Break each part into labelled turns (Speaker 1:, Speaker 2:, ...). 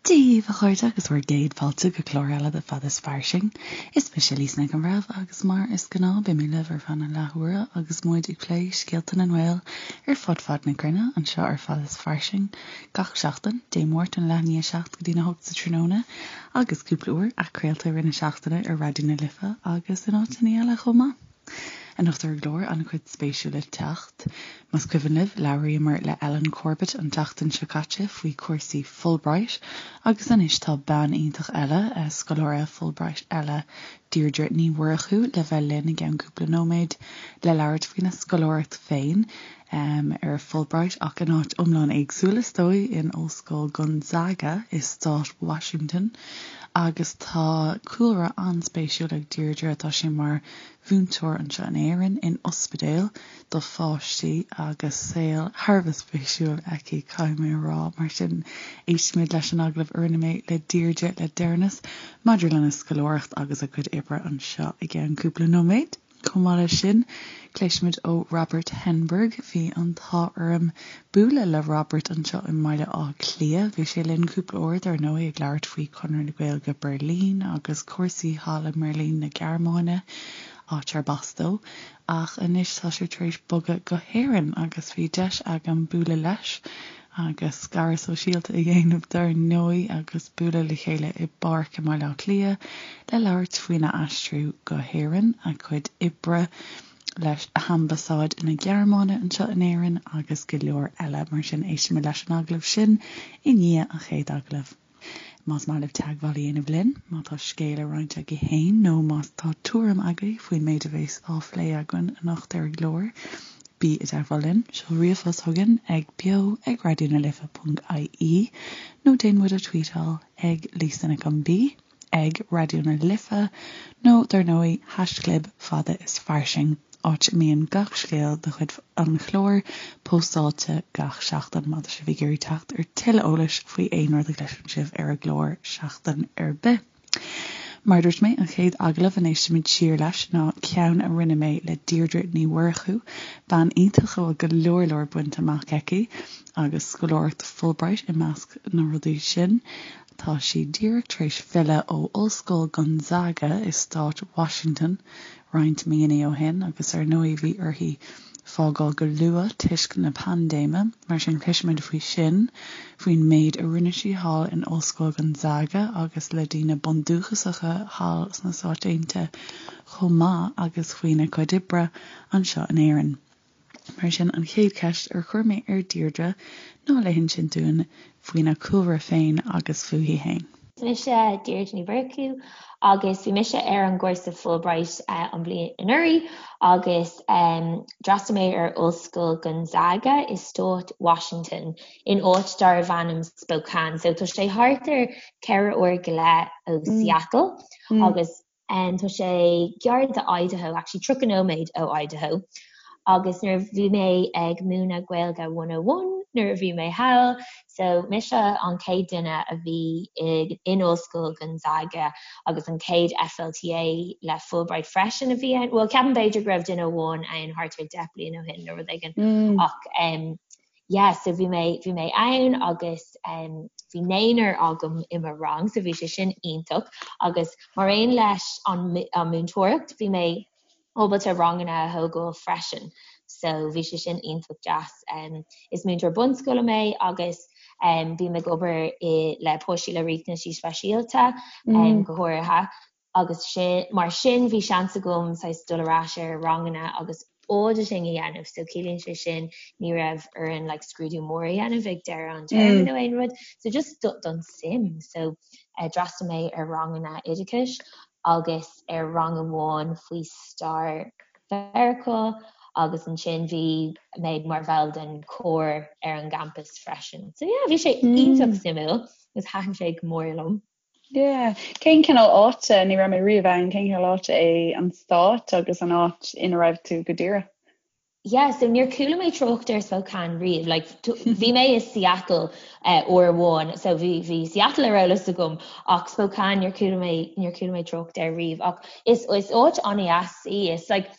Speaker 1: Dia daoibh a chairde agus bhur gcéad fáilte go clár eile de Fada is Fairsing. Is mise Lisa Nic an Bhreithimh agus mar is gnáth beidh mé libh ar feadh na leathuaire agus muid ag plé scéalta na nGael ar fud fad na cruinne anseo ar Fada is Fairsing gach seachtain, Dé Máirt ón leath i ndiaidh 7 go dtí a 8 sa tráthnóna agus cúpla uair athchraolta i rith na seachtaine ar Raidió na Life agus in áiteanna eile chomh maith. Anocht ar an gclár, an-chuid spéisiúil le teacht. Más cuimhin libh, labhraíomar le Ellen Corbett an tseachtain seo caite faoi chúrsaí Fulbright agus anois tá bean iontach eile, scoláire Fulbright eile, Deirdre Ní Mhurchú, le bheith linn i gceann cúpla nóiméad le labhairt faoina scoláireacht féin ar Fulbright ach in áit iomlán éagsúil is dóigh, in Ollscoil Gonzaga i stát Washington. Agus tá cúlra an-spéisiúil ag Deirdre, tá sí mar mhúinteoir anseo in Éirinn, in ospidéal do pháistí agus saol thar a bheith spéisiúil aici, caithfidh mé a rá. Mar sin, éistfimid leis an agallamh a rinne mé le Deirdre le deireanas maidir lena scoláireacht agus a cuid oibre anseo i gceann cúpla nóiméad. Chomh maith leis sin, cloisfimid ó Robert Henberg. Bhí an t-ádh orm bualadh le Robert anseo i mBaile Átha Cliath. Bhí sé linn cúpla uair, dar ndóigh, ag labhairt faoi Chonradh na Gaeilge Beirlín agus cúrsaí thall i mBeirlín na Gearmáine, áit arb as dó. Ach anois tá sé tar éis bogadh go hÉirinn agus bhí deis agam bualadh leis agus scaradh sóisialta a dhéanamh dar ndóigh agus bualadh le chéile i bpáirc i mBaile Átha Cliath le labhairt faoina aistriú go hÉirinn, a chuid oibre leis Ambasáid na Gearmáine anseo in Éirinn agus go leor eile. Mar sin éistfimid leis an agallamh sin i ndiaidh an chéad agallaimh. Más maith libh teagmháil a dhéanamh linn, má tá scéal le roinnt agaibh féin nó má tá tuairim agaibh faoin méid a bheas á phlé againn anocht ar an gclár, bí i dteagmháil linn. Seol ríomhphost chugainn ag beo ag raidionalife.ie nó déan muid a tweetáil ag Lisa Nic an B ag Raidió na Life nó dar ndóigh haischlib fada is fairsing. áit a mbíonn gach scéal de chuid an chláir póstáilte gach seachtain má tá sibh ag iarraidh teacht ar tuilleadh eolais faoi aon rud a chloiseann sibh ar an gclár seachtain ar bith. Mar a dúirt mé, an chéad agallamh a n-éistfimid siar leis ná ceann a rinne mé le Deirdre Ní Mhurchú, bean iontach a bhfuil go leor leor bainte amach aici, agus scoláireacht Fulbright i measc na rudaí sin. Tá sí díreach tar éis filleadh ó Ollscoil Gonzaga i stát Washington roinnt míonna ó shin agus ar ndóigh bhí uirthi fágáil go luath toisc na paindéime, mar sin cloisfimid faoi sin, faoin méid a rinne sí thall in Ollscoil Gonzaga agus le daoine bundúchasacha thall sna Stáit Aontaithe chomh maith agus faoina cuid oibre anseo in Éirinn. Mar sin, an chéad cheist ar chuir mé ar Deirdre ná le hinsint dúinn faoina cúlra féin agus fúithi féin.
Speaker 2: Is mise Deirdre Ní Mhurchú agus bhí mise ar an gcúrsa Fulbright an bhliain anuraidh agus d'fhreastail mé ar Ollscoil Gonzaga i stát Washington in áit darbh ainm Spokane. So tá sé thart ar 4 uair go leith ó Seattle agus Tá sé gar do Idaho, actually 30 nóiméad ó Idaho, agus nuair a bhí mé ag múineadh Gaeilge 101 nuair a bhí mé thall, so mise an chéad duine a bhí in Ollscoil Gonzaga agus an chéad FLTA le Fulbright freisin a bhí ann, bhuel ceapaim b'fhéidir go raibh duine amháin ann thart ar 10 bliain ó shin nó rud éigin ach yeah so bhí mé bhí mé ann agus um, bhí naonúr agam i mo rang so bhí sé sin iontach agus mar aon leis an, an múinteoireacht bhí mé ábalta ranganna a thógáil freisin so bhí sé sin iontach deas. Um, is múinteoir bunscoile mé agus um, bím ag obair i, le páistí le riachtanaisí speisialta um, mm. go háirithe agus sin, mar sin bhí seans agam saghas dul ar ais ar ranganna agus auditing a dhéanamh so ciallaíonn sé sin ní raibh orainn like scrúdú mór a dhéanamh ag deireadh an téarma nó aon rud so just do, don suim so uh, d'fhreastail mé ar ranganna oideachais agus ar rang amháin faoi stair Mheiriceá agus ansin bhí mé mar bhall den chór ar an gcampas freisin. So yeah, bhí sé iontach suimiúil agus thaitin sé go mór liom.
Speaker 1: Yeah. Cén cineál áite, ní raibh mé riamh ann, cén cineál áite é an stát agus an áit ina raibh tú go díreach?
Speaker 2: Yeah, so níor chuala mé trácht ar Spokane riamh, like bhí mé i Seattle uh, uair amháin, so bhí bhí Seattle ar eolas agam ach Spokane níor chuala mé níor chuala mé trácht air riamh ach is is áit an-dheas í, is like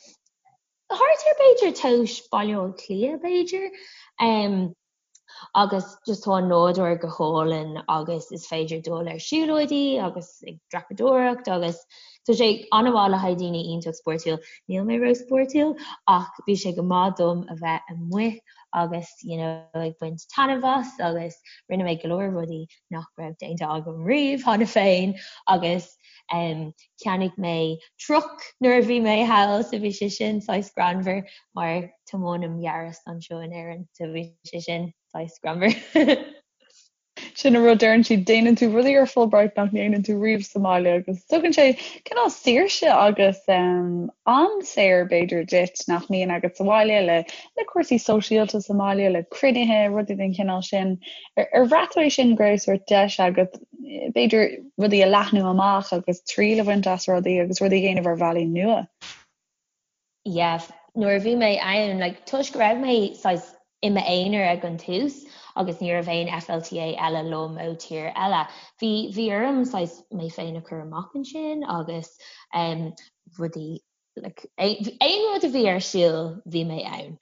Speaker 2: thart ar b'fhéidir tomhas Baile Átha Cliath b'fhéidir. Um, Agus just tá an nádúr go hálainn agus is féidir dul ar siúlóidí agus ag dreapadóireacht agus tá sé an-mhaith le haghaidh daoine iontach spórtúil. Níl mé ró-spórtúil ach bhí sé go maith dom a bheith amuigh agus you know ag baint taitneamh as agus rinne mé go leor rudaí nach raibh déanta agam riamh cheana féin agus um, cheannaigh mé truck nuair a bhí mé thall so bhí sé sin saghas greannmhar mar tiománaim Yaris anseo in Éirinn so bhí sé sin saghas greannmhar.
Speaker 1: Sin an rud deireann siad, déanann tú rudaí ar Fulbright nach ndéanann tú riamh sa mbaile agus tugann sé cineál saoirse agus um, am saor b'fhéidir duit nach mbíonn agat sa bhaile le le cúrsaí sóisialta sa mbaile, le cruinnithe, rudaí den chineál sin. Ar, ar bhraith tú é sin go raibh sórt deis agat b'fhéidir rudaí a leathnú amach agus triail a bhaint as rudaí agus rudaí a dhéanamh ar bhealaí nua?
Speaker 2: Yeah, nuair a bhí mé ann, like, toisc go raibh mé saghas i m'aonar ag an tús agus ní raibh aon FLTA eile liom ó tír eile, bhí, bhí orm saghas mé féin a chur amach ansin agus um, rudaí, like, aon rud a bhí ar siúl, bhí mé ann.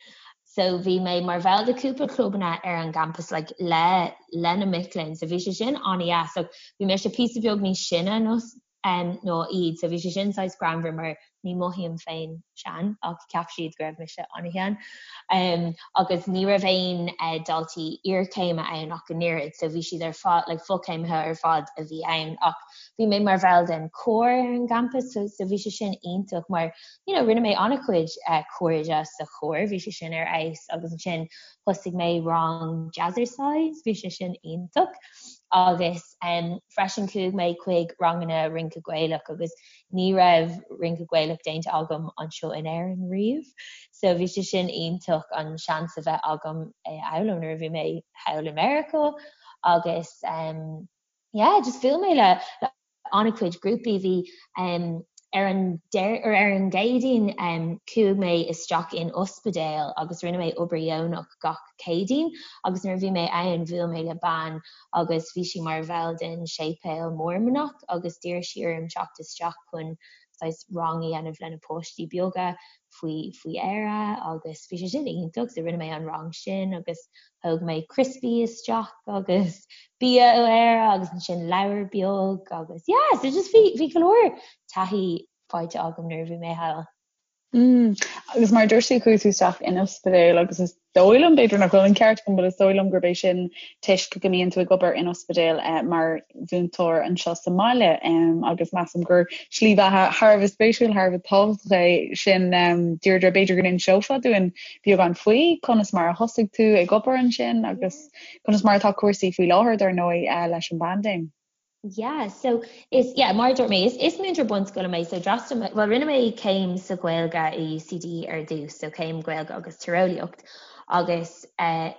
Speaker 2: So bhí mé mar bhall de cúpla clubanna ar an gcampas like, le, le na mic léinn, so bhí sé sin an-dheas. So bhí mise píosa beag níos sine ná ná iad. So bhí sé sin saghas greannmhar mar ní mothaím féin sean ach cheap siad go raibh mise an-shean. Agus ní raibh aon daltaí iarchéime ann ach an oiread so bhí siad ar fad, like fochéimithe ar fad a bhí ann ach bhí mé mar bhall den chór ar an gcampas so so bhí sé sin iontach mar you know rinne mé an-chuid cairde sa chór, bhí sé sin ar fheabhas agus ansin thosaigh mé rang jazzercise, bhí sé sin iontach agus Freisin chuaigh mé chuig ranganna rince Gaelach agus ní raibh rince Gaelach déanta agam anseo in Éirinn riamh so bhí sé sin iontach an seans a bheith agam é a fhoghlaim nuair a bhí mé thall i Meiriceá agus yeah just bhuail mé le an-chuid grúpaí bhí Ar an ar an gCéadaoin chuaigh mé isteach in ospidéal agus rinne mé obair dheonach gach Céadaoin agus nuair a bhí mé ann bhuail mé le bean agus bhí sí mar bhall den séipéal Mormannach agus d'iarr sí orm teacht isteach chun saghas rang a dhéanamh le na páistí beaga faoi faoi Éire agus bhí sé sin iontach so rinne mé an rang sin agus Thóg mé criospaí isteach agus bia ó Éire agus ansin leabhar beag agus yeah so just bhí bhí go leor taithí faighte agam nuair a bhí mé thall.
Speaker 1: Mm. Agus mar a dúirt tú chuaigh tú isteach in ospidéal agus is dóigh liom b'fhéidir nach bhfuil an ceart agam but is dóigh liom gurb é sin toisc go mbíonn tú ag obair in ospidéal eh, mar mhúinteoir anseo sa mbaile agus measaim gur slí bheatha thar a bheith spéisiúil, thar a bheith tábhachtach é sin. Deirdre, b'fhéidir go n-inseofá dúinn beagán faoi conas mar a thosaigh tú ag obair ansin agus conas mar atá cúrsaí faoi láthair dar ndóigh leis an bpaindéim.
Speaker 2: Yeah, so is, yeah, mar a dúirt mé, is, is múinteoir bunscoile mé, so d'fhreastail mé, well rinne mé céim sa Ghaeilge i UCD ar dtús, so céim Gaeilge agus Tíreolaíocht agus eh,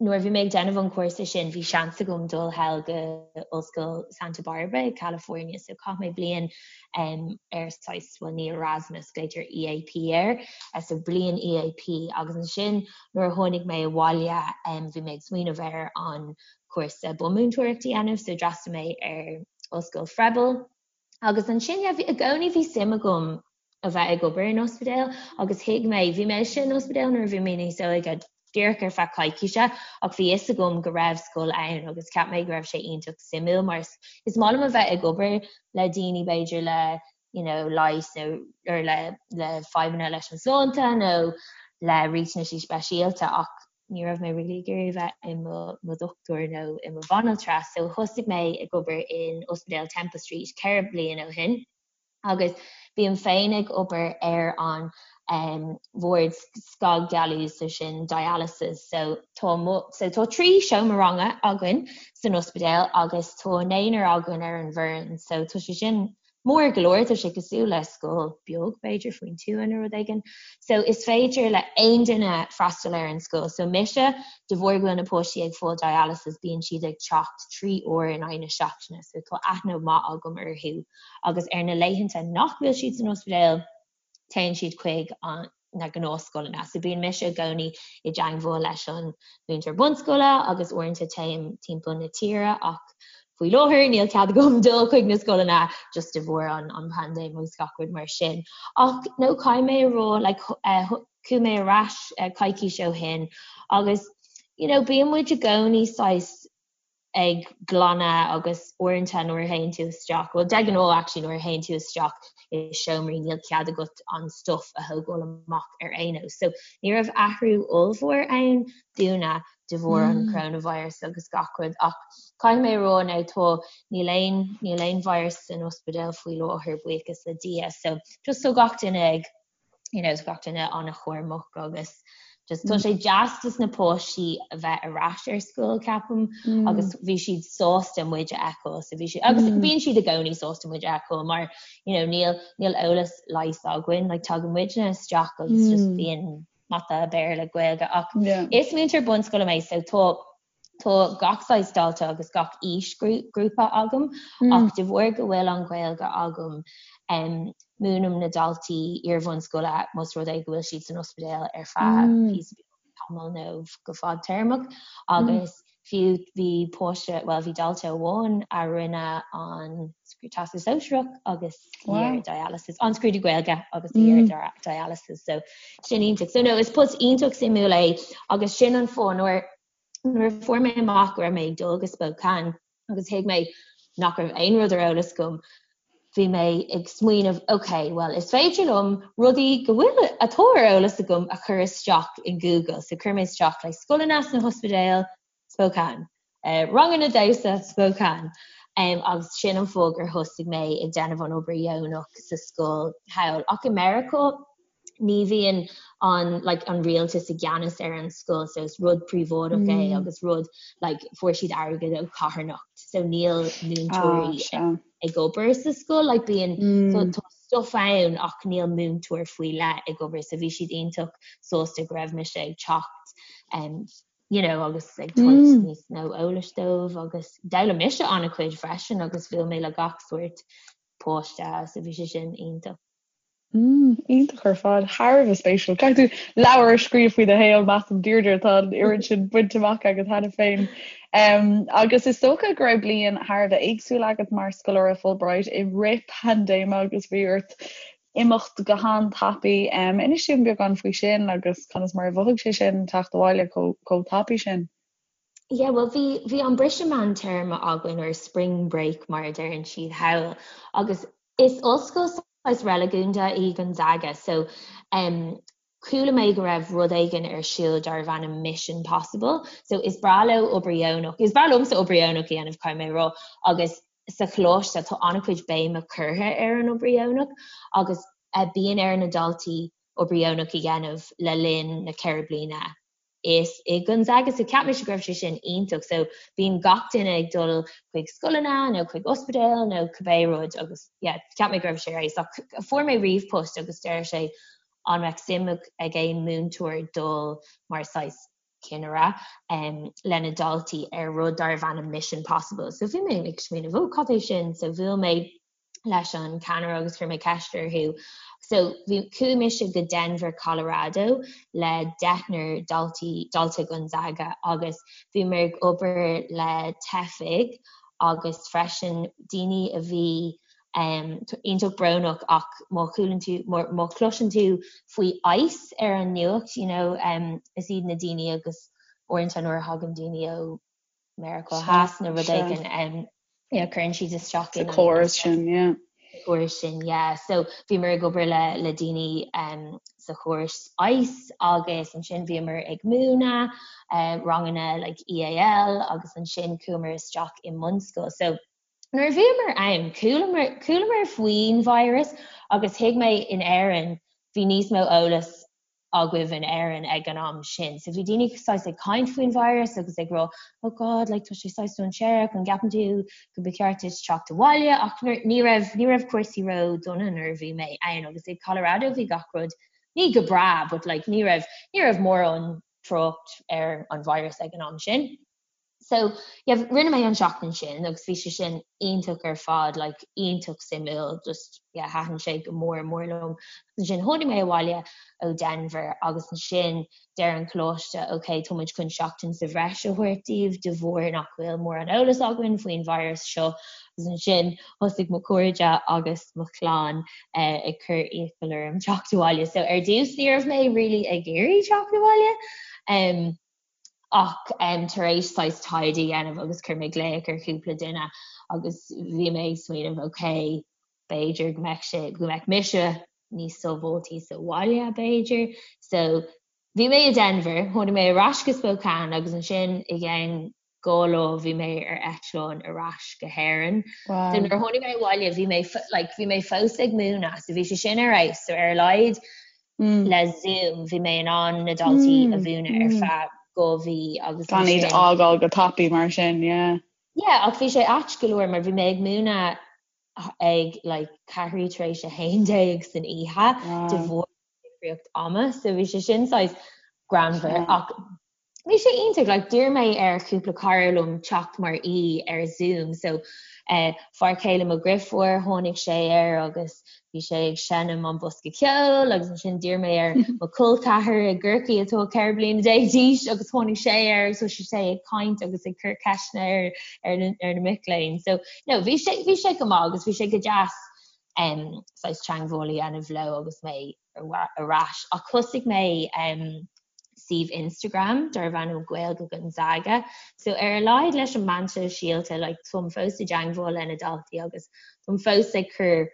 Speaker 2: Nuair a bhí mé ag déanamh an chúrsa sin bhí seans agam dul thall go Ollscoil Santa Barbara i California so chaith mé bliain ar saghas, bhuel ní Erasmus, glaoitear EAP air, so bliain EAP agus ansin nuair a tháinig mé abhaile bhí mé ag smaoineamh ar an chúrsa bunmhúinteoireacht a dhéanamh so d'fhreastail mé ar Ollscoil Froebel. Agus ansin, yeah, bhí, i gcónaí bhí suim agam a bheith ag obair in ospidéal agus thuig mé, bhí mise in ospidéal nuair a bhí mé níos óige, díreach ar feadh coicíse, ach bhí fhios agam go raibh scoil ann agus cheap mé go raibh sé iontach suimiúil mar is, is maith liom a bheith ag obair le daoine b'fhéidir le, you know, leigheas nó, or le, le fadhbanna leis an sláinte nó le riachtanaisí speisialta ach ní raibh mé really ag iarraidh a bheith i mo dhochtúir nó i mo bhanaltra so thosaigh mé ag obair in Ospidéal Temple Street 4 bliain ó shin agus bím féin ag obair ar an bhord scagdhealú so sin dialysis so tá so tá 3 seomra ranga againn san ospidéal agus tá naonúr againn ar an bhfoireann so tá sé sin Mór go leor, tá sé cosúil le scoil beag, b'fhéidir, faoin tuath nó rud éigin. So is féidir le aon duine freastal ar an scoil. So mise, de bharr go bhfuil na páistí ag fáil dialysis, bíonn siad ag teacht 3 uair in aghaidh na seachtaine, so tá aithne mhaith agam orthu. Agus ar na laethanta nach bhfuil siad san ospidéal, téann siad chuig na gnáthscoileanna. So bíonn mise i gcónaí i dteangmháil leis an mhúinteoir bunscoile agus uaireanta téim timpeall na tíre ach faoi láthair níl cead agam dul chuig na scoileanna just de bharr an an paindéim agus gach rud mar sin. Ach no caithfidh mé a rá like chuaigh mé ar ais coicís ó shin agus. you know bíonn muid i gcónaí saghas ag glanadh agus uaireanta nuair a théann tú isteach, bhuel de ghnáth actually nuair a théann tú isteach i seomraí níl cead agat an stuff a thógáil amach ar aon nós. So ní raibh athrú ollmhór ann dúinne de bharr an coronavirus agus gach rud ach caithfidh mé a rá now tá níl aon níl aon virus san ospidéal faoi láthair buíochas le Dia so just tá gach duine ag you know, gach duine an-chúramach agus just tá sé deas dos na páistí a bheith ar ais ar scoil ceapaim mm. agus bhí siad sásta muid a fheiceáil so bhí siad agus mm. bíonn siad i gcónaí sásta muid a fheiceáil mar you know, níl níl eolas leighis againn like tagann muidne isteach agus mm. just bíonn mata Béarla Gaeilge ach yeah. is múinteoir bunscoile mé so tá Tá gach saghas dalta agus gach aoisghrúpa agam ach de bharr go bhfuil an Ghaeilge agam múinim na daltaí iar-bhunscoile más rud é go bhfuil siad san ospidéal ar feadh píosa beag tamall nó go fadtéarmach agus fiú bhí páiste, bhuel bhí dalta amháin a rinne an Teastas Sóisearach agus í ar dialysis, an scrúdú Gaeilge agus í ar dialysis so sin iontach. So no is post iontach suimiúil é agus sin an fáth nuair Nuair a fuair mé amach go raibh mé ag dul go Spokane agus thuig mé nach raibh aon rud ar eolas agam, bhí mé ag smaoineamh, ok, bhuel is féidir liom rudaí go bhfuil, atá ar eolas agam a chur isteach in Google. So chuir mé isteach like scoileanna sna hospidéil, Spokane, ranganna damhsa, Spokane. Um, agus sin an fáth gur thosaigh mé ag déanamh an obair dheonach sa scoil thall. Ach i Meiriceá, ní bhíonn an like an rialtas i gceannas ar an scoil so is rud príobháideach é mm. agus rud like fuair siad airgead ó carthanacht so níl múinteoirí ah, ag obair sa scoil like bíonn mm. so, tá stuff ann ach níl múinteoir faoi leith ag obair so bhí siad iontach sásta go raibh mise ag teacht um, you know agus ag tabhairt mm. níos mó eolais dóibh agus d'fhoghlaim mise an-chuid freisin agus bhuail mé le gach sórt páiste so bhí sé sin iontach.
Speaker 1: Mm, iontach ar fad, thar a bheith spéisiúil. Caithfidh tú leabhar a scríobh faoi do shaol, measaim, Deirdre, tá an oiread sin bainte amach agat cheana féin. Um, agus is dócha go raibh bliain thar a bheith éagsúil agat mar scoláire Fulbright i rith paindéime agus bhí ort imeacht go han-tapaidh. Um, inis dúinn beagán faoi sin agus conas mar a mhothaigh sé sin teacht abhaile chomh tapaidh sin.
Speaker 2: Yeah, well bhí bhí an briseadh meántéarma againn or spring break mar a deireann siad thall agus Is ollscoil saghas reiligiúnda í Gonzaga so em chuala mé go raibh rud éigin ar siúl darbh ainm Mission Possible so is breá leo obair dheonach, is breá liomsa obair dheonach a dhéanamh caithfidh mé a rá agus sa choláiste tá an-chuid béime curtha ar an obair dheonach agus eh bíonn ar na daltaí obair dheonach a dhéanamh le linn na 4 bliana is i Gonzaga so cheap mise go raibh sé sin iontach so bíonn gach duine ag dul chuig scoileanna nó chuig ospidéal nó cibé rud agus yeah cheap mé go raibh sé ar fheabhas ach fuair mé ríomhphost agus deir sé an mbeadh suim ag aon múinteoir dul mar saghas cinnire um, lena daltaí ar rud darbh ainm Mission Possible so bhí mé ag smaoineamh ó cad é sin so bhuail mé leis an ceannaire agus chuir mé ceist orthu. So bhí chuaigh mise go Denver, Colorado le deichniúr daltaí dalta Gonzaga agus bhíomar ag obair le teifigh agus freisin daoine a bhí um, iontach brónach ach má chualann tú má chloiseann tú faoi ICE ar an nuacht you know, um, is iad na daoine agus uaireanta nuair a thagann daoine ó Meiriceá Theas nó rud éigin yeah, cuireann siad isteach
Speaker 1: in an córas sin, yeah.
Speaker 2: córas sin, yeah. So bhíomar ag obair le le daoine um, sa chóras ICE agus ansin bhíomar ag múineadh uh, ranganna like EAL agus ansin chuamar isteach i mbunscoil. So nuair a bhíomar ann, chualamar, chualamar faoin virus agus thuig mé in Éirinn bhí níos mó eolas agaibh in Éirinn ag an am sin. So bhí daoine saghas ag caint faoin virus agus ag rá oh God like tá sé saghas dainséarach an gceapann tú go ba cheart duit teacht abhaile ach ní raibh ní raibh cúrsaí ró dona nuair a bhí mé ann agus i Colorado bhí gach rud ní go breá but like ní raibh ní raibh mórán trácht ar an virus ag an am sin. So yeah rinne mé an seachtain sin agus bhí sé sin iontach ar fad like iontach suimiúil just yeah thaitin sé go mór mór liom. Ansin tháinig mé abhaile ó Denver agus ansin deir an coláiste ok tá muid chun seachtain sa bhreis a thabhairt daoibh de bharr nach bhfuil mórán eolas againn faoin virus seo agus ansin thosaigh mo chairde agus mo chlann eh, ag cur iachall orm teacht abhaile. So ar dtús ní raibh mé really ag iarraidh teacht abhaile. Um, Ach tar éis saghas taighde a dhéanamh agus chuir mé glaoch ar chúpla duine agus bhí mé ag smaoineamh ok, b'fhéidir go mbeadh sé, go mbeadh mise níos sábháiltí sa bhaile b'fhéidir. So bhí mé i Denver, tháinig mé ar ais go Spokane agus ansin i gceann 2 lá bhí mé ar eitleán ar ais go hÉirinn. Wow. So nuair a tháinig mé abhaile bhí mé like bhí mé fós ag múineadh so bhí sé sin ar fheabhas so ar a laghad mm. le Zoom bhí mé in ann na daltaí mm. a mhúineadh ar mm. feadh 2 mhí
Speaker 1: agus Gan iad a fhágáil go tapaidh mar sin, yeah.
Speaker 2: Yeah, ach bhí sé ait go leor mar bhí mé ag múineadh ag like ceathrú tar éis 11 san oíche de bharr difríocht ama so bhí sé sin saghas greannmhar ach bhí sé iontach like d'iarr mé ar chúpla cara liom teacht mar aoi ar Zoom so eh, fear céile mo dheirfiúr tháinig sé air agus bhí sé ag seinm an bosca ceoil agus ansin d'iarr mé ar mo chol ceathar i gCorcaigh atá 14 bliana d'aois agus tháinig sé air agus thosaigh sé ag caint agus ag cur ceisteanna ar ar na, ar na mic léinn so no bhí sé bhí sé go maith agus bhí sé go deas um, saghas teagmháil a dhéanamh leo agus mé ar ais ach thosaigh mé um, suíomh Instagram darbh ainm Gaeilge Gonzaga. So ar a laghad leis an meán sóisialta like, táim fós i dteagmháil le na daltaí agus táim fós ag cur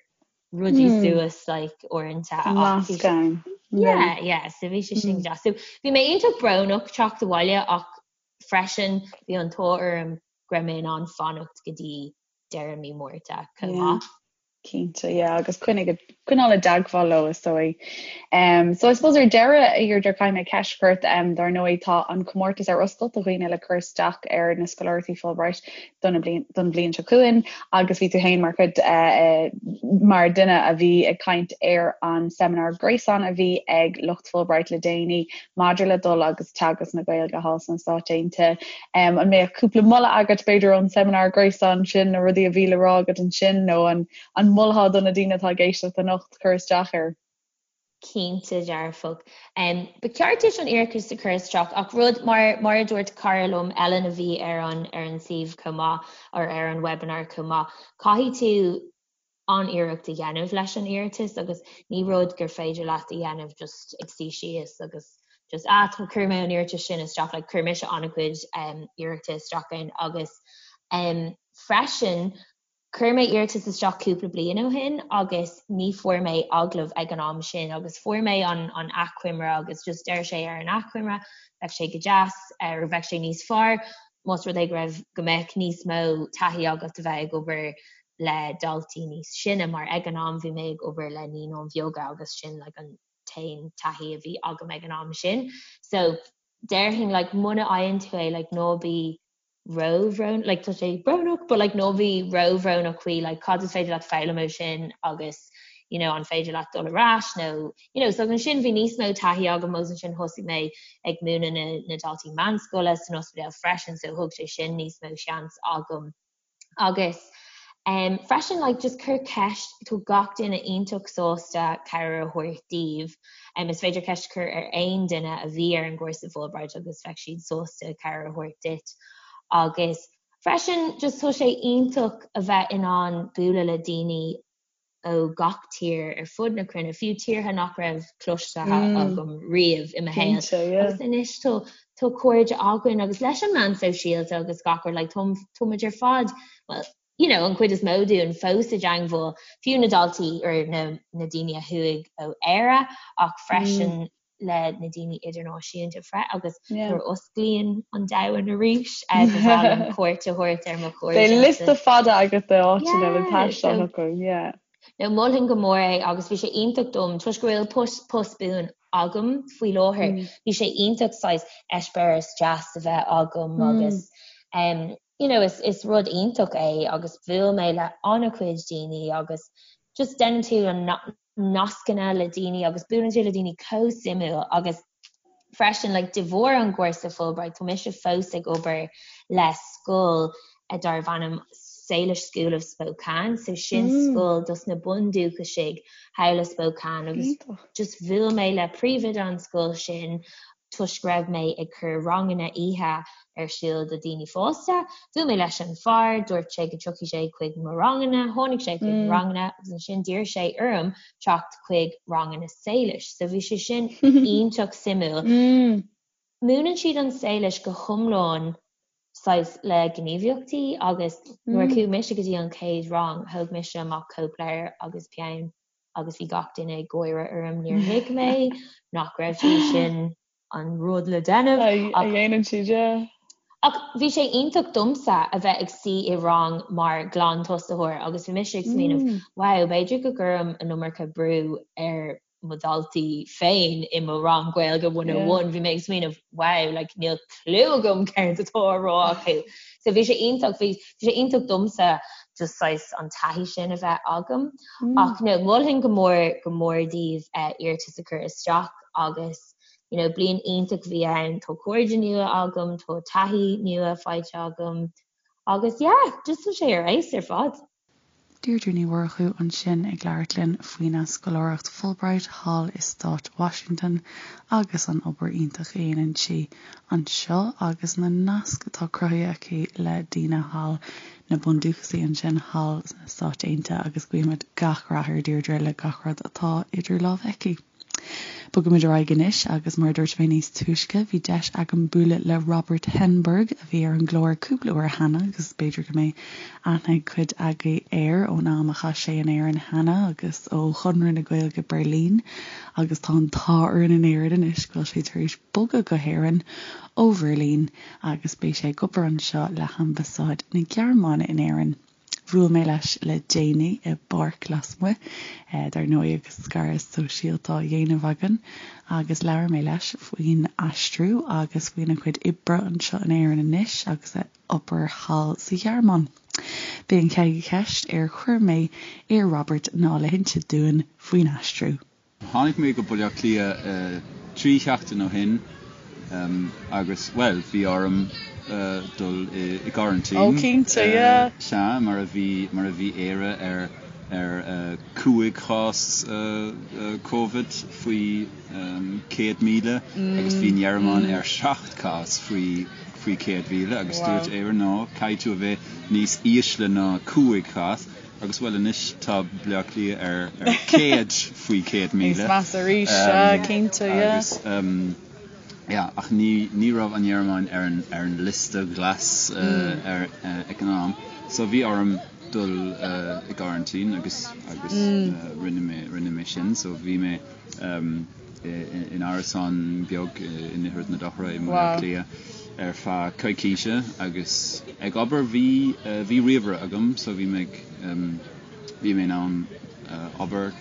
Speaker 2: rudaí mm. suas like, uaireanta.
Speaker 1: Nasc ann.
Speaker 2: Yeah, yeah, so bhí sé sin mm. deas. So bhí mé iontach brónach teacht abhaile ach freisin bhí an t-ádh orm go raibh mé in ann fanacht go dtí deireadh mí Márta chomh maith.
Speaker 1: Cinnte, yeah, agus coinnigh, coinneáil i dteagmháil leo is dóigh. Um, so I suppose ar deireadh, a Dheirdre, caithfidh mé ceist a chur ort, um, dar ndóigh tá an comórtas ar oscailt do dhaoine le cur isteach ar na scoláireachtaí Fulbright don bhliain, don bhliain seo chugainn agus bhí tú féin mar chuid uh, mar duine a bhí ag caint ar an seimineár gréasáin a bhí ag lucht Fulbright le déanaí maidir le dul agus teagasc na Gaeilge thall sna Stáit Aontaithe. An mbeadh cúpla moladh agat, b'fhéidir, ón seimineár gréasáin sin, na rudaí a bhí le rá agat ansin, nó an an molfá do na daoine atá ag éisteacht anocht cur isteach air?
Speaker 2: Cinnte dearfach. Ba cheart duit an iarratas a chur isteach ach rud, mar mar a dúirt cara liom, Ellen, a bhí ar an ar an suíomh chomh maith, or ar an webinar chomh maith, caithfidh tú an-iarracht a dhéanamh leis an iarratas agus ní rud gur féidir leat a dhéanamh just ag suí síos agus just ah chuir mé an iarratas sin isteach like chuir mise an-chuid um, iarrachta isteach ann agus um, freisin chuir mé iarratas isteach cúpla bliain ó shin agus ní fuair mé agallamh ag an am sin agus fuair mé an, an achoimre agus just deir sé ar an achoimre bheadh sé go deas ar bheadh sé níos fearr más rud é go raibh go mbeadh níos mó taithí agat a bheith ag obair le daltaí níos sine mar ag an am bhí mé ag obair le naíonáin bheaga agus sin like an t-aon taithí a bhí agam ag an am sin. So déarfainn like muna fhaigheann tú é like ná bí róbhrónach like tá sé brónach but like ná bí róbhrónach faoi like cad is féidir leat foghlaim ó sin agus you know an féidir leat dul ar ais nó you know so ansin bhí níos mó taithí agam agus ansin thosaigh mé ag múineadh na na daltaí meánscoile san ospidéal freisin so thug sé sin níos mó seans agam Agus um, freisin like, just cuir ceist, tá gach duine iontach sásta cabhair a thabhairt daoibh. Um, is féidir ceist a chur ar aon duine a bhí ar an gcúrsa Fulbright agus bheadh siad sásta cabhair a thabhairt duit. Agus freisin just tá sé iontach a bheith in ann bualadh le daoine ó gach tír ar fud na cruinne, fiú tíortha nach raibh cloiste agam riamh i mo shaol. Agus anois tá tá cairde againn agus leis an meán sóisialta agus gach rud like tá tá muid ar fad well you know an chuid is mó dúinn fós i dteangmháil, fiú na daltaí or na na daoine a chuaigh ó Éire ach freisin le na daoine idirnáisiúnta fre agus nuair a osclaíonn an domhan arís ba bhreá liom cuairt a thabhairt ar mo chairde.
Speaker 1: Beidh liosta fada agat de áiteanna le taisteal chucu, yeah.
Speaker 2: No, mholfainn go mór é agus bhí sé iontach dom toisc go bhfuil post post buan agam faoi láthair. Bhí sé iontach saghas eispéireas deas a bheith agam agus um, you know, is, is rud iontach é agus bhuail mé le an-chuid daoine agus just déanann tú an nascanna le daoine agus buaileann tú le daoine chomh suimiúil agus freisin like de bharr an gcúrsa Fulbright tá mise fós ag obair le scoil darb ainm Salish School of Spokane so sin mm. scoil dos na bundúchasaigh thall i Spokane agus just bhuail mé le príomhoide an scoil sin toisc go raibh mé ag cur ranganna oíche ar siúl do daoine fásta. Bhuail mé leis an fear, dúirt sé go dtiocfaidh sé chuig mo ranganna, tháinig sé chuig mo ranganna agus ansin d'iarr sé orm teacht chuig ranganna Salish. So bhí sé sin iontach suimiúil. Múineann siad an Séilis go hiomlán saghas le gníomhaíochtaí agus nuair a chuaigh mise go dtí an chéad rang thóg mise amach cóipleabhar agus peann agus bhí gach duine ag gáire orm, níor thuig mé nach raibh sé sin an rud le déanamh
Speaker 1: a dhéanann siad, yeah.
Speaker 2: Ach bhí sé iontach domsa a bheith ag suí i rang mar ghlantosaitheoir agus bhí mise ag smaoineamh, wow, b'fhéidir go gcuirim an iomarca brú ar mo dhaltaí féin i mo rang Gaeilge 101, bhí mé ag smaoineamh, wow, like níl clue agam céard atá á rá acu. So bhí sé iontach, bhí sé iontach domsa just saghas an taithí sin a bheith agam. Ach no, mholfainn go mór, go mór daoibh iarratas a chur isteach agus you know bliain iontach a bhí ann, tá cairde nua agam, tá taithí nua faighte agam agus yeah, just tá sé ar fheabhas ar fad.
Speaker 1: Deirdre Ní Mhurchú ansin ag labhairt linn faoina scoláireacht Fulbright thall i Stát Washington agus an obair iontach a dhéanann sí anseo agus na naisc atá cruthaithe aici le daoine thall, na bundúchasaigh ansin thall sna Stáit Aontaithe agus guímid gach rath ar Deirdre le gach rud atá idir lámha aici. Bogaimid ar aghaidh anois agus mar a dúirt mé níos túisce, bhí deis agam bualadh le Robert Henberg a bhí ar an gclár cúpla uair cheana agus b'fhéidir go mbeidh aithne ag cuid agaibh air ón am a chaith sé in Éirinn cheana agus ó Chonradh na Gaeilge Berlin agus tá an t-ádh orainn in Éirinn anois go bhfuil sé tar éis bogadh go hÉirinn ó Bheirlín agus beidh sé ag obair anseo le hAmbasáid na Gearmáine in Éirinn. Bhuail mé leis le déanaí i bpáirc lasmuigh, dar ndóigh agus scaradh sóisialta á dhéanamh againn, agus labhair mé leis faoin aistriú agus faoina chuid oibre anseo in Éirinn anois agus a obair thall sa Ghearmáin. B'é an chéad cheist ar chuir mé ar Robert ná le hinse dúinn faoin aistriú.
Speaker 3: Tháinig mé go Baile Átha Cliath 3 sheachtain ó shin agus, bhuel, bhí orm dul i gcoraintín.
Speaker 1: Ó, cinnte, yeah.
Speaker 3: Sea, mar a bhí, mar a bhí Éire ar, ar 5 chás Covid faoi 100,000 agus bhí an Ghearmáin ar 7 cás faoi, faoi 100,000 agus dúirt Éire, no, caithfidh tú a bheith níos ísle ná 5 chás. Agus bhuel anois tá Baile Átha Cliath ar 100 faoi 100,000.
Speaker 1: Níos measa arís, sea, cinnte, yeah.
Speaker 3: Agus yeah, ach ní ní raibh an Ghearmáin ar an ar an liosta glas ar ag an am. So bhí orm dul i gcoraintín agus agus rinne mé rinne mé sin. So bhí mé in árasán beag i nDroichead na Dothra i mBaile Átha Cliath ar feadh coicíse agus ag obair. Bhí bhí ríomhaire agam so bhí mé ag bhí mé in ann obair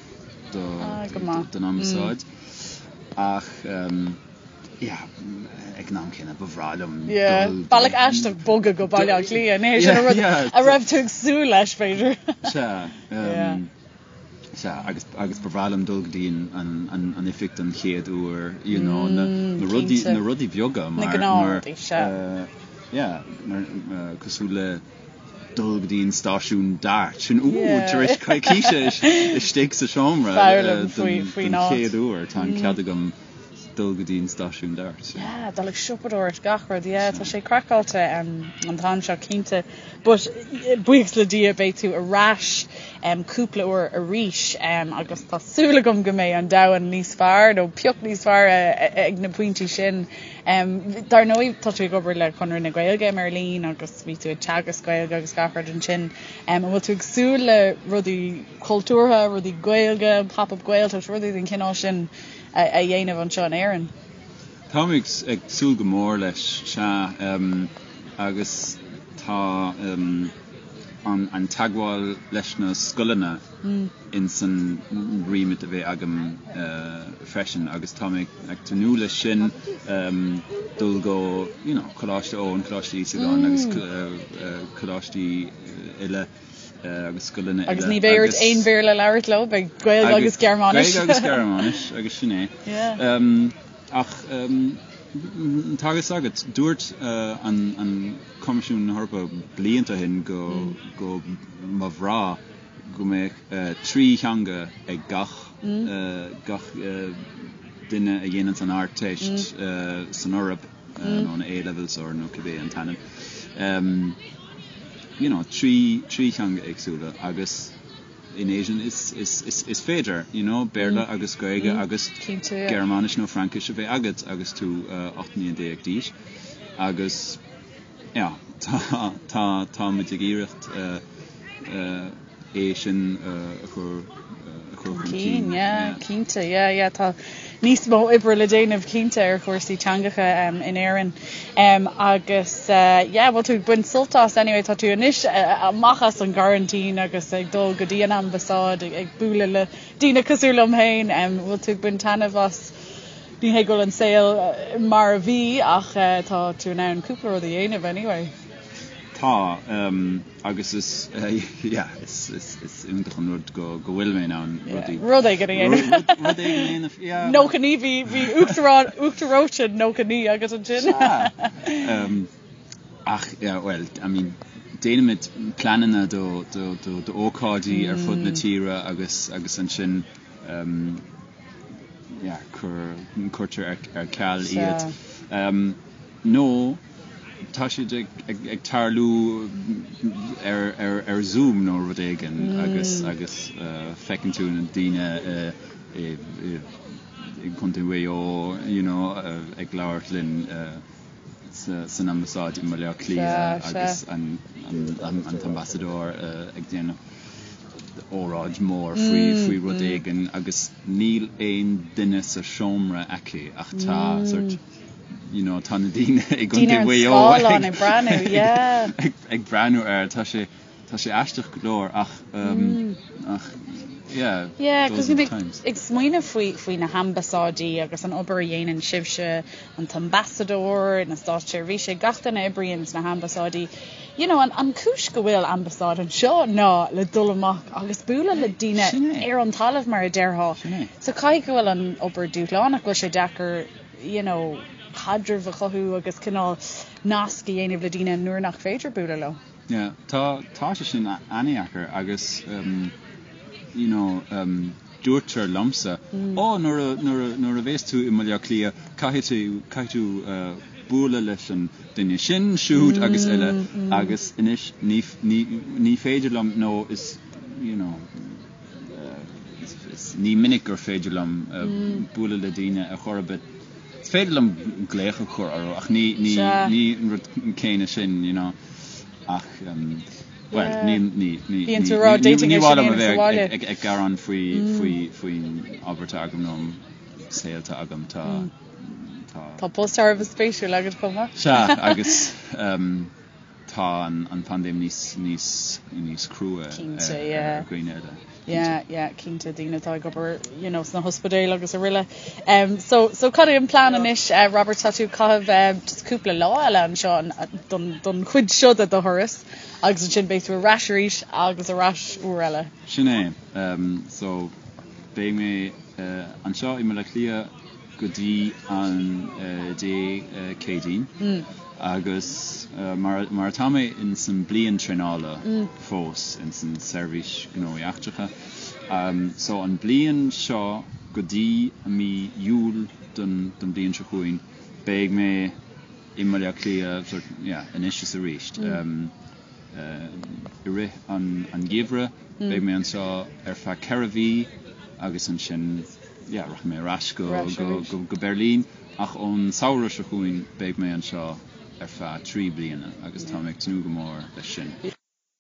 Speaker 3: do don ambasáid ach yeah ag an am céanna ba bhreá liom
Speaker 1: dul Bealach aisteach bogadh go Baile Átha Cliath, ní hé sin an rud a raibh tú ag súil leis b'fhéidir.
Speaker 3: Sea. Sea, agus, agus ba bhreá liom dul go dtí an, an, an oifig don chéad uair, you know, na, na rudaí, na rudaí beaga
Speaker 1: mar, Na gnáthrudaí, sea.
Speaker 3: mar, yeah, mar, cosúil le dul go dtí an stáisiún DART, sin, ooh, tar éis coicíse istigh sa seomra
Speaker 1: Foghlaim faoi, faoin
Speaker 3: don chéad uair, tá an cead agam dul go dtí an stáisiún DART.
Speaker 1: Yeah, dul ag siopadóireacht, gach rud, yeah, tá sé craiceáilte an t-am seo cinnte. But buíochas le Dia beidh tú ar ais cúpla uair arís agus tá súil agam go mbeidh an domhan níos fearr nó pioc níos fearr ag na pointí sin. Dar ndóigh tá tú ag obair le Conradh na Gaeilge i mBeirlín agus bhí tú ag teagasc Gaeilge agus gach rud ansin. An bhfuil tú ag súil le rudaí cultúrtha, rudaí Gaeilge, Pop-up Gaeltacht, rudaí den chineál sin a dhéanamh anseo in Éirinn?
Speaker 3: Táim ag súil go mór leis, sea. Agus tá an teagmháil leis na scoileanna ins an remit a bheidh agam freisin agus tá mé ag tnúth leis sin, dul go you know Coláiste Eoin, Coláiste Íosagáin agus coláistí eile agus scoileanna
Speaker 1: eile. Agus ní bheidh ort aon Bhéarla a labhairt leo, beidh Gaeilge agus Gearmáinis.
Speaker 3: Gaeilge agus Gearmáinis agus sin é. Ach tá a fhios agat, dúirt an Coimisiún na hEorpa blianta ó shin go go mba bhreá go mbeadh 3 theanga ag gach gach duine a dhéananns an Ardteist san Eoraip, nó an A-levels or nó cibé an t-ainm. You know, 3 theanga éagsúla agus. in Éirinn is is is is féidir you know Béarla agus Gaeilge agus Gearmáinis nó Fraincis a bheith agat agus tú 18 mbliana d'aois agus yeah tá tá táimid ag iarracht é sin a chur a chur chun cinn.
Speaker 1: Yeah, cinnte, yeah, yeah, tá níos mó oibre le déanamh cinnte ar chúrsaí teangacha in Éirinn. Agus yeah, bhfuil tú ag baint sult as anyway, tá tú anois amach as an gcoraintín agus ag dul go dtí an ambasáid ag bualadh le daoine cosúil liom féin, bhfuil tú ag baint taitneamh as ní hé go bhfuil an saol mar a bhí ach tá tú in ann cúpla rud a dhéanamh anyway.
Speaker 3: Tá, agus is, yeah, is, is, is iontach an rud go, go bhfuil mé in ann
Speaker 1: rudaí. Rud éigin a dhéanamh.
Speaker 3: Rud, rud éigin a dhéanamh, yeah.
Speaker 1: 99, bhí, bhí uachtarán, uachtaróite 99 agat ansin.
Speaker 3: Sea. Ach, yeah, well, I mean, déanaimid pleananna do, do, do, d'ócáidí ar fud na tíre agus, agus ansin, yeah, cur, cuirtear ar, ar ceal iad. Nó tá siad ag tarlú ar Zoom nó rud éigin agus agus feiceann tú na daoine i gContae Mhaigh Eo you know ag labhairt linn san ambasáid i mBaile Átha Cliath agus an t-ambasadóir ag déanamh óráid mhór faoi faoi rud éigin agus níl aon duine sa seomra aici ach tá sort you know tá na daoine i gContae Mhaigh Eo
Speaker 1: ag breathnú yeah
Speaker 3: ag breathnú air tá sé tá sé aisteach go leor ach ach yeah
Speaker 1: yeah cos bhí mé ag smaoineamh faoi faoi na hambasáidí agus an obair a dhéanann sibhse an t-ambasadóir na státseirbhísigh gach duine a oibríonn sna hambasáidí you know an an cúis go bhfuil ambasáid anseo ná le dul amach agus bualadh le daoine ar an talamh mar a déarfá so caithfidh go bhfuil an obair dúshlánach go bhfuil sé deacair you know, caidreamh a chothú agus cineál nasc a dhéanamh le daoine nuair nach féidir bualadh leo.
Speaker 3: Yeah, tá, tá sé sin an-deacair agus um, you know, um, dúirtear liomsa, mm. ó nuair a, nuair a, nuair a bhéas tú i mBaile Átha Cliath caithfidh tú, caithfidh tú uh, bualadh leis an duine sin, siúd mm, agus eile mm. agus anois ní, ní, ní féidir liom nó is, you know, Ní minic gur féidir liom bualadh le daoine ar chor ar bith. Is féidir liom glaoch a chur orthu ach ní ní ní an rud céanna sin, you know. Ach bhuel, ní ní ní
Speaker 1: Bíonn tú ag rá,
Speaker 3: d'fhéadfainn ní é sin mhaith a liom a dhéanamh sa bheith bhaile. ag ag gearán faoi faoi faoin obair atá agam nó an saol atá agam. Tá
Speaker 1: tá. Tá post thar a bheith spéisiúil agat chomh maith.
Speaker 3: Sea, agus Tá an phaindéim níos níos níos crua
Speaker 1: Cinnte, yeah.
Speaker 3: ar dhaoine eile.
Speaker 1: Yeah, yeah, cinnte, daoine atá ag obair, you know, sna hospidéil agus araile. Um, so, so cad é an plean anois, uh, Robert, tá tú ag caitheamh uh, just cúpla lá eile anseo an, don, don chuid seo de do thuras agus ansin beidh tú ar ais arís agus ar ais uair eile.
Speaker 3: Sin é. Um, so, beidh mé uh, anseo i mBaile Átha Cliath go dtí an Dé Céadaoin agus mar atá mé ins an bliain traenála fós ins an Seirbhís Gnóthaí Eachtracha so an bliain seo go dtí mí Iúil don bliain seo chugainn beidh mé i mBaile Átha Cliath sort yeah anois is arís. I rith an gheimhridh beidh mé anseo ar feadh 4 mhí agus ansin yeah rachaidh mé ar ais go go Beirlín ach ón samhradh seo chugainn beidh mé anseo ar feadh 3 bliana agus tá mé ag tnúth go mór leis sin.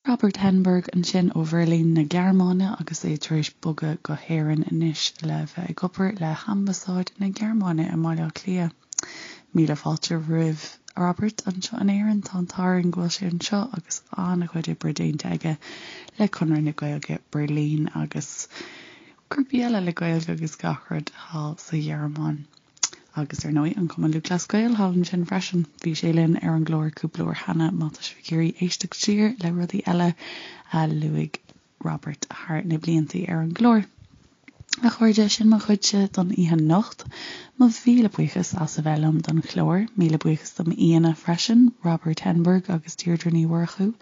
Speaker 1: Robert Henneberg ansin ó Bheirlín na Gearmáine agus é tar éis bogadh go hÉirinn anois le bheith ag obair le hAmbasáid na Gearmáine i mBaile Átha Cliath. Míle fáilte roimh Robert anseo in Éirinn. Tá an t-ádh orainn go bhfuil sé anseo agus an-chuid oibre déanta aige le Conradh na Gaeilge Berlin agus grúpaí eile le Gaeilge agus gach rud thall sa Ghearmáin. Agus ar ndóigh an Cumann Lúthchleas Gael thall ansin freisin. Bhí sé linn ar an gclár cúpla uair cheana má tá sibh ag iarraidh éisteacht siar le rudaí eile a luaigh Robert thar na blianta ar an gclár. A chairde, sin mo chuidse don oíche anocht. Mo mhíle buíochas as a bheith liom don chlár. Míle buíochas do m'aíonna freisin, Robert Henneberg agus Deirdre Ní Mhurchú.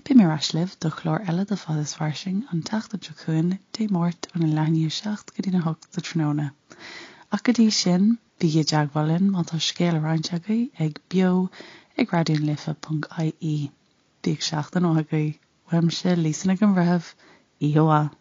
Speaker 1: Beidh mé ar ais libh do chlár eile de Fad is Fairsing an tseachtain seo chugainn, Dé Máirt óna leath i ndiaidh 7 go dtína 8 sa tráthnóna. Ach go dtí sin, bígí i dteagmháil linn má tá scéal le roinnt agaibh ag beo ag raidionalife.ie. Bíodh seachtain mhaith agaibh. Uaimse, Lisa Nic an Bhreithimh, oíche mhaith.